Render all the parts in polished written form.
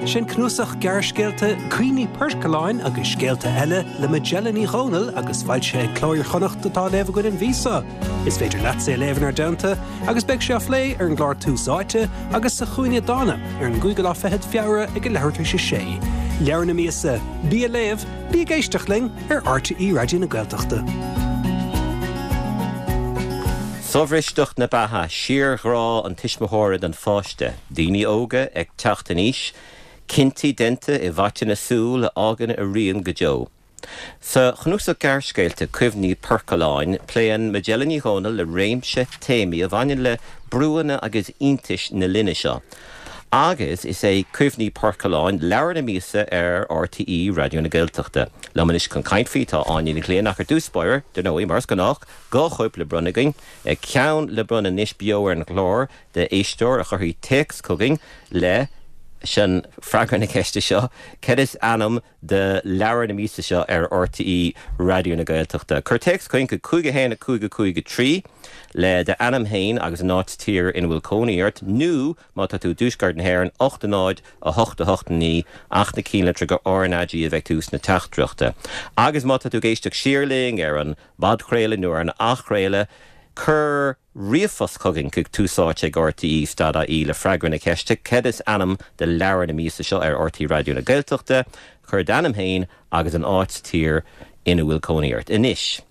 Sin cnuasach gearrscéalta Cuimhní Poircealláin agus Scéalta Eile le Majella Ní Dhomhnaill agus foilsithe ag Cló Iar-Chonnacht atá á léamh againn an mhí seo. Is féidir leatsa é a léamh inár dteannta agus beidh sé á phlé ar an gclár Tús Áite agus sa Chúinne Dána ar an gcúigiú lá fichead Feabhra ag a leathuair tar éis a sé. Leabhar na míosa, bí ag léamh, bí ag éisteacht linn ar RTÉ Raidió na Gaeltachta. Sobhristeacht na beatha, síorghrá an tuismitheora don pháiste, daoine óga ag teacht in aois, cinntí déanta i bhfaiteadh na súl a fhágann a rian go deo. Sa chnuasach gearrscéalta Cuimhní Poircealláin, pléann Majella Ní Dhomhnaill le réimse téamaí a bhaineann le brúanna agus iontais na linne seo. Agus is é Cuimhní Poircealláin leabhar na míosa ar RTÉ Raidió na Gaeltachta. Liom anois chun caint faoi tá Áine Ní Ghlinn ach ar dtús báire, dar ndóigh, mar is gnách, 2 chóip le bronnadh againn, ceann le bronnadh anois beo ar an gclár d'éisteoir a chuirfidh téacs chugainn leis an freagra na ceiste seo, Cad is ainm do leabhar na míosa seo ar RTÉ Raidió na Gaeltachta? Cuir téacs chugainn chuig 5 1 5 5 3 le d'ainm féin agus an áit sa tír ina bhfuil cónaí ort nó Má tá tú i dtuaisceart na hÉireann, 8 0 8 8 9, ach na cinnlitreacha RnaG a bheidh ag tús na teachtaireachta. Agus má tá tú ag éisteacht siar linn ar an bpodchraoladh nó ar an athchraoladh, cuir ríomhphost chugainn chuig túsáite ag rte stad ie le freagra na ceiste, Cad is ainm do leabhar na míosa seo ar RTÉ Raidió na Gaeltachta? Cuir d'ainm féin agus an áit sa tír ina bhfuil cónaí ort. Anois.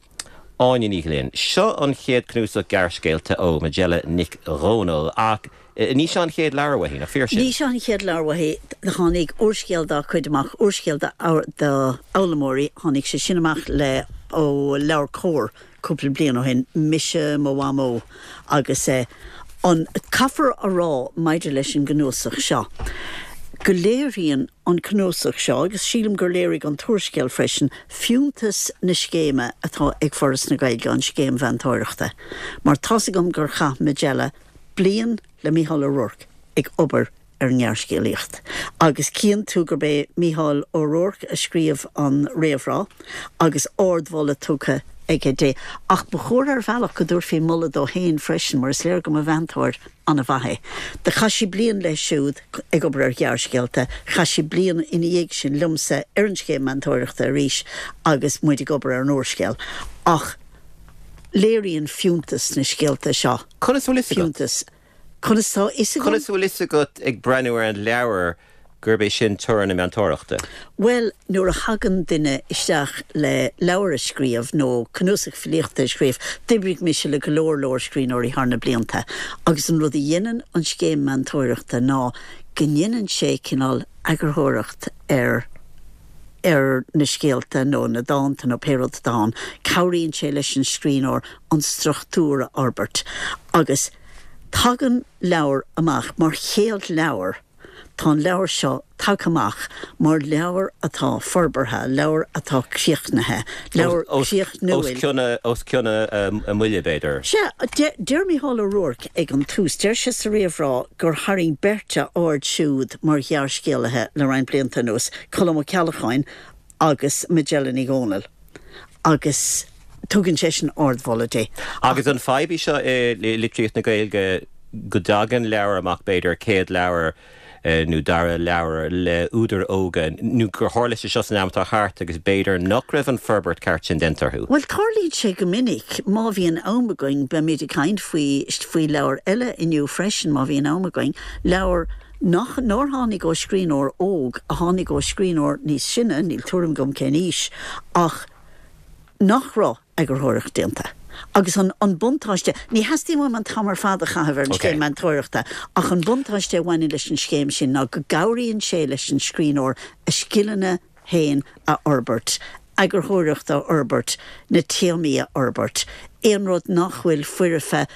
Áine Ní Ghlinn. Seo an chéad cnuasach gearrscéalta ó Majella Nic Dhomhnaill, ach ní seo an chéad leabhar uaithi, nach fíor sin? Ní seo an chéad leabhar uaithi. Tháinig úrscéal dá cuid amach, úrscéal d'fhoghlaimeoirí, tháinig sé sin amach le ó LeabhairCOMHAR cúpla bliain ó shin, Mise, Mo Mhamó agus an, caithfear a rá maidir leis an gcnuasach seo go léiríonn an cnuasach seo, agus sílim gur léirigh an t-úrscéal freisin, fiúntas na scéime atá ag Foras na Gaeilge, an scéim mheantóireachta. Mar tá's agam gur chaith Majella bliain le Mícheál Ó Ruairc ag obair ar an ngearrscéalaíocht. Agus cíonn tú gurb é Mícheál Ó Ruairc a scríobh an réamhrá agus ardmholadh tugtha aige di. Ach ba chóir ar bhealach go dtabharfaí moladh dó féin freisin mar is léir go mba mheantóir an-mhaith é. Do chaith sí bliain leis siúd ag obair ar ghearrscéalta, chaith sí bliain ina dhiaidh sin liomsa ar an scéim meantóireachta arís agus muid ag obair ar an úrscéal. Ach léiríonn fiúntas na scéalta seo Conas a bhfuil fhios agat? fiúntas. Conas tá fhios agam? Conas a bhfuil fhios agat ag breathnú ar an leabhar gurb é sin toradh na meantóireachta? Bhuel, nuair a thagann duine isteach le leabhar a scríobh nó cnuasach filíochta a scríobh, d'oibrigh mise le go leor leor scríbhneoirí thar na blianta agus an rud a dhéanann an scéim meantóireachta ná go ndéanann sé cineál eagarthóireacht ar ar na scéalta nó na dánta nó pé rud atá ann. Cabhraíonn sé leis an scríbhneoir an struchtúr a fhorbairt agus tagann leabhar amach mar chéad leabhar Tá an leabhar seo tagtha amach mar leabhar atá forbartha, leabhar atá críochnaithe, leabhar críochnúil. Os cionn a mbuille, b'fhéidir. Sea, deir Mícheál Ó Ruairc ag an tús, deir sé sa réamhrá gur tharraing beirt a aird siúd mar ghearrscéalaithe le roinnt blianta anuas, Colm Ó Ceallacháin agus Majella Ní Dhomhnaill, agus tugann seisean ardmholadh di. Agus an fadhb í seo i litríocht na Gaeilge go dtagann leabhar amach, b'fhéidir, céad leabhar nó dara leabhar le údair óga, nó gur tharla sé seo san am atá thart agus b'fhéidir nach raibh an forbairt ceart sin déanta orthu? Bhuel, tarlaíonn sé go minic. Má bhíonn am againn, beimid ag caint faoi, faoi leabhar eile inniu freisin, má bhíonn am againn, leabhar nach, nár tháinig ó scríbhneoir óg, a tháinig ó scríbhneoir níos sine, níl tuairim agam cén aois, ach nach raibh eagarthóireacht déanta. Agus an, an buntáiste, ní theastaíonn uaim an t-am ar fad a chaitheamh ar an scéim meantóireachta, ach an buntáiste a bhaineann leis an scéim sin ná go gcabhraíonn sé leis an scríbhneoir a scileanna féin a fhorbairt, eagarthóireacht a fhorbairt, na téamaí a fhorbairt, aon rud nach bhfuil foirfe,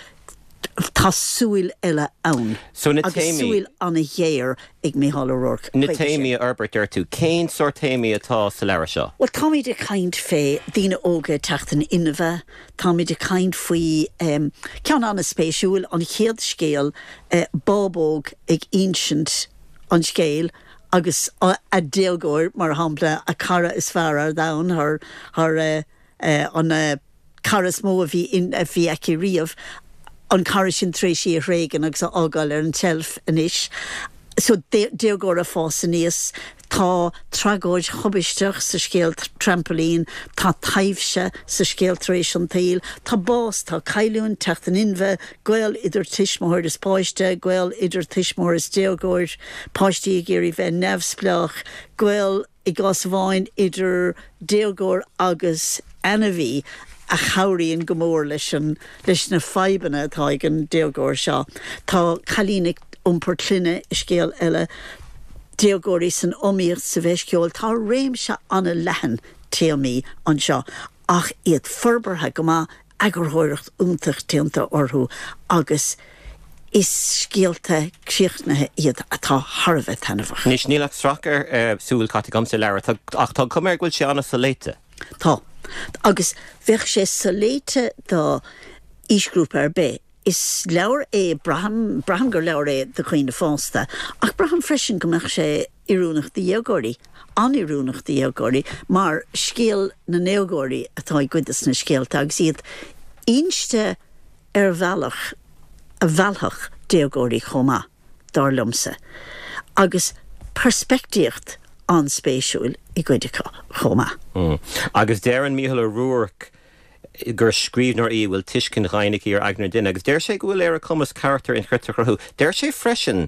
Tá súil eile ann. So na Agus téamaí. súil an-ghéar ag Mícheál Ó Ruairc Na chuige sin. téamaí a fhorbairt, deir tú. Cén sórt téamaí atá sa leabhar seo? Bhuel, táimid ag caint fé daoine óga ag teacht in inmhe, táimid ag caint faoi, ceann an-spéisiúil, an chéad scéal, bábóg ag insint an scéil agus a déagóir, mar shampla, a cara is fearr ar domhan, thar, thar an. cara is mó a bhí a bhí aici riamh, an cara sin tar éis í a thréigean agus a fhágáil ar an tseilf anois. So, déagóir ag fás aníos, tá tragóid thubaisteach sa scéal Trampailín, tá taibhse sa scéal Tar éis an tSaoil, tá bás, tá cailliúint, teacht in inmhe, gaol idir tuismitheoir is páiste, gaol idir tuismitheoir is déagóir, páistí ag iarraidh bheith neamhspleách, gaol i gcás amháin idir déagóir agus ainmhí a chabhraíonn go mór leis an leis na fadhbanna atá ag an déagóir seo. Tá cailín ag iompar clainne i scéal eile, déagóirí san iomaíocht sa bhFeis Cheoil. Tá réimse an-leathan téamaí anseo ach iad forbartha go maith, eagarthóireacht iontach déanta orthu agus is scéalta críochnaithe iad atá thar a bheith taitneamhach. Anois, níl ach sracadh súl caite agam sa leabhar ach tá an chuma air go bhfuil sé an-soléite. Tá. Agus bheadh sé soléite do aoisghrúpa ar bith. Is leabhar é, braithim, braithim gur leabhar é do dhaoine fásta ach braithim freisin go mbeadh sé oiriúnach do dhéagóirí, an-oiriúnach do dhéagóirí, mar scéal na ndéagóirí atá i gcuid de na scéalta agus iad inste ar bhealach a mheallfadh déagóirí chomh maith, dar liomsa, agus peirspictíocht an-spéisiúil i gcuid acu chomh maith. Agus deireann Mícheál Ó Ruairc gur scríbhneoir í a bhfuil tuiscint dhoimhin aici ar aigne an duine agus deir sé go bhfuil ar a cumas carachtair inchreidte a chruthú. Deir sé freisin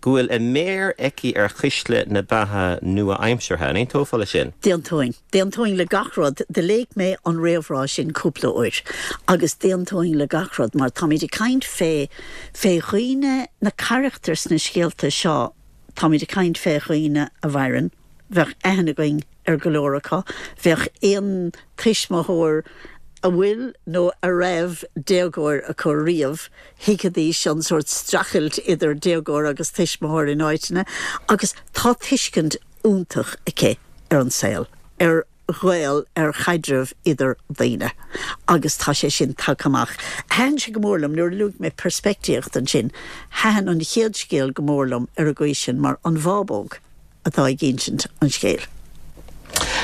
go bhfuil a méar aici ar chuisle na beatha nua-aimseartha. An aontófá leis sin? D'aontóinn. D'aontóinn le gach rud. Do léigh mé an réamhrá sin cúpla uair agus d'aontóinn le gach rud mar táimid ag caint fé, fé dhaoine, na carachtair sna scéalta seo, táimid ag caint fé dhaoine a mhaireann, Bheadh aithne againn ar go leor acu. Bheadh aon tuismitheoir a bhfuil nó a raibh déagóir acu riamh, thuigfidís an sórt streachailt idir déagóir agus tuismitheoir in áiteanna. Agus tá tuiscint iontach aici ar an saol, ar ghaol, ar chaidreamh idir daoine agus tá sé sin tagtha amach. Thaitin sé go mór liom, nuair a luaigh mé peirspictíocht ansin, thaitin an chéad scéal go mór liom ar an gcaoi sin mar an bhábóg atá ag insint an scéil.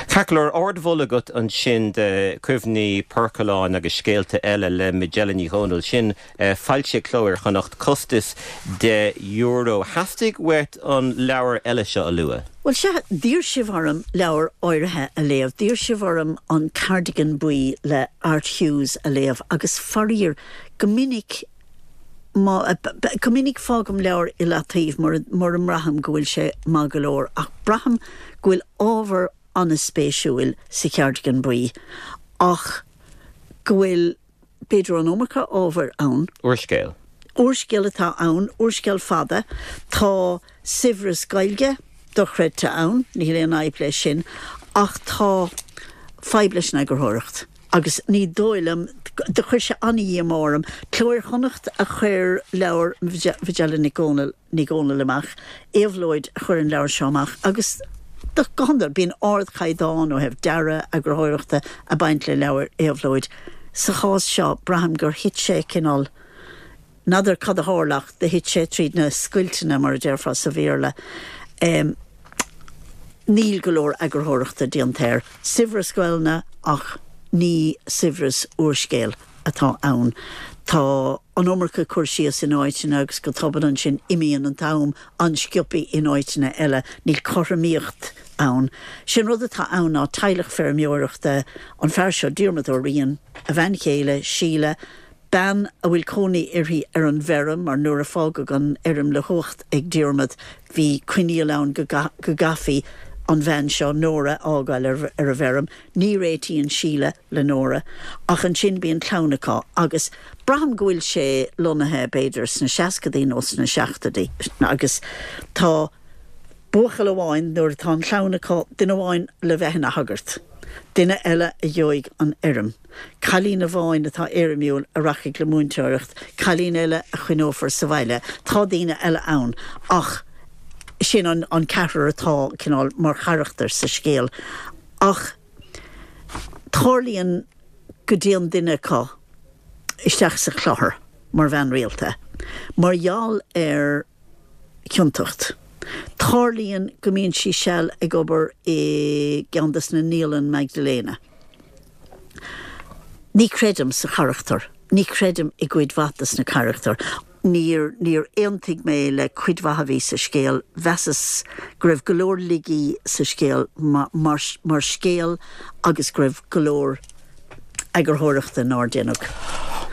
Ceart go leor, ardmholadh agat ansin de Cuimhní Poircealláin agus Scéalta Eile le Majella Ní Dhomhnaill. Sin foilsithe ag Cló Iar-Chonnacht, costas €10. Theastaigh uait an leabhar eile seo a lua. Bhuel, sea, d'iarr sibh orm leabhar áirithe a léamh. D'iarr sibh orm An Cardigan Buí le Art Hughes a léamh agus faraor, go minic, má, go minic fágaim leabhar i leataobh mura, mura mbraithim go bhfuil sé maith go leor ach braithim go bhfuil ábhar an-spéisiúil sa Chardigan Buí ach go bhfuil, b'fhéidir an iomarca ábhair ann. Úrscéal. Úrscéal atá ann, úrscéal fada. Tá saibhreas Gaeilge dochreidte ann, níl aon fhadhb leis sin, ach tá fadhb leis an eagarthóireacht agus ní dóigh liom, do chuir sé an-dhíomá orm. Cló Iar-Chonnacht a chuir leabhar Mhajella Nic Dhomhnaill, Ní Dhomhnaill amach, Éabhlóid a chuir an leabhar seo amach agus go hiondúil bíonn ardchaighdeán ó thaobh dearadh, eagarthóireachta ag baint le leabhair Éabhlóid. Sa chás seo braithim gur thit sé cineál, n'fheadar cad a tharla ach do thit sé tríd na scoilteanna mar a déarfá sa Bhéarla. Níl go leor eagarthóireachta déanta air. Saibhreas Gaelainne ach ní saibhreas úrscéil atá ann. Tá an iomarca cur síos in áiteanna agus go tobann ansin imíonn an t-am an-sciobtha in áiteanna eile. Níl cothromaíocht ann. Sé'n rud atá ann ná teaghlach feirmeoireachta, an fear seo Diarmuid Ó Riain, a bhean chéile, Síle, bean a bhfuil cónaí uirthi ar an bhfeirm mar nuair a fágadh an fheirm le huacht ag Diarmuid bhí coinníoll ann go gcaithfí an bhean seo, Nóra, a fhágáil ar an bhfeirm. Ní réitíonn Síle le Nóra ach ansin bíonn clann acu agus braithim go bhfuil sé lonnaithe b'fhéidir sna seascadaí nó sna seachtóidí agus tá buachaill amháin nuair atá an chlann acu, duine amháin le bheith ina shagart, duine eile a gheobhaidh an fheirm. Cailín amháin atá éirimiúil a rachaidh le múinteoireacht, cailín eile a choinneofar sa bhaile. Tá daoine eile ann ach sin an ceathrar atá cineál mar charachtair sa scéal. Ach tarlaíonn go dtéann duine acu isteach sa chlochar mar bhean rialta mar gheall ar chiontacht. Tarlaíonn go mbíonn sí seal ag obair i gceann des na naíolann Magdalena. Ní chreidim sa charachtar. Ní chreidim i gcuid mhaith des na carachtair. Níor, níor aontaigh mé le cuid mhaith a bhí sa scéal. Mheasas go raibh go leor laigí sa scéal mar, mar scéal agus go raibh go leor eagarthóireachta nár déanadh.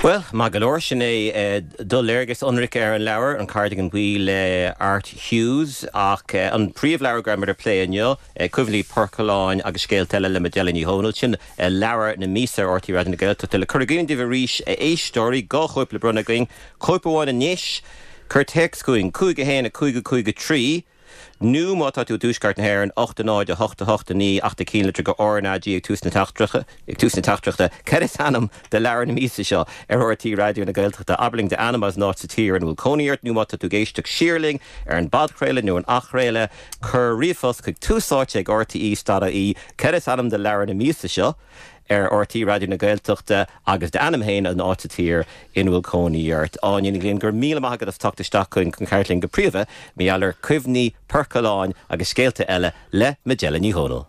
Bhuel, maith go leor, sin é do léargas ionraic ar an leabhar, An Cardigan Buí le Art Hughes. Ach an príomhleabhar go raibh muid ag plé inniu, Cuimhní Poircealláin agus Scéalta Eile le Majella Ní Dhomhnaill, sin leabhar na míosa ar RTÉ Raidió na Gaeltachta. Le cur i gcuimhne daoibh arís, a éisteoirí, 2 chóip le bronnadh againn, cóip amháin anois, cuir téacs chugainn, 5 1 5 5 3, Nó má tá tú i dTuaisceart na hÉireann, 8 0 8 8 9 ach do chinnlitir go RnaG ag tús na ag tús na teachtaireachta. Cad is ainm do leabhar na míosa seo ar RTÉ Raidió na Gaeltachta? Abair linn d'ainm agus an áit sa tír ina bhfuil cónaí ort, nó má tá tú ag éisteacht siar linn ar an bpodchraoladh nó an athchraoladh, cuir ríomhphost chuig tús áite ag rte.ie. Cad is ainm do leabhar na míosa seo? ar RTÉ Raidió na Gaeltachta agus d'ainm féin an áit sa tír ina bhfuil cónaí ort. Áine Ní Ghlinn, go raibh míle maith agat as teacht isteach chugainn chun caint linn go príomha mar gheall ar Cuimhní Poircealláin agus Scéalta Eile le Majella Ní Dhomhnaill.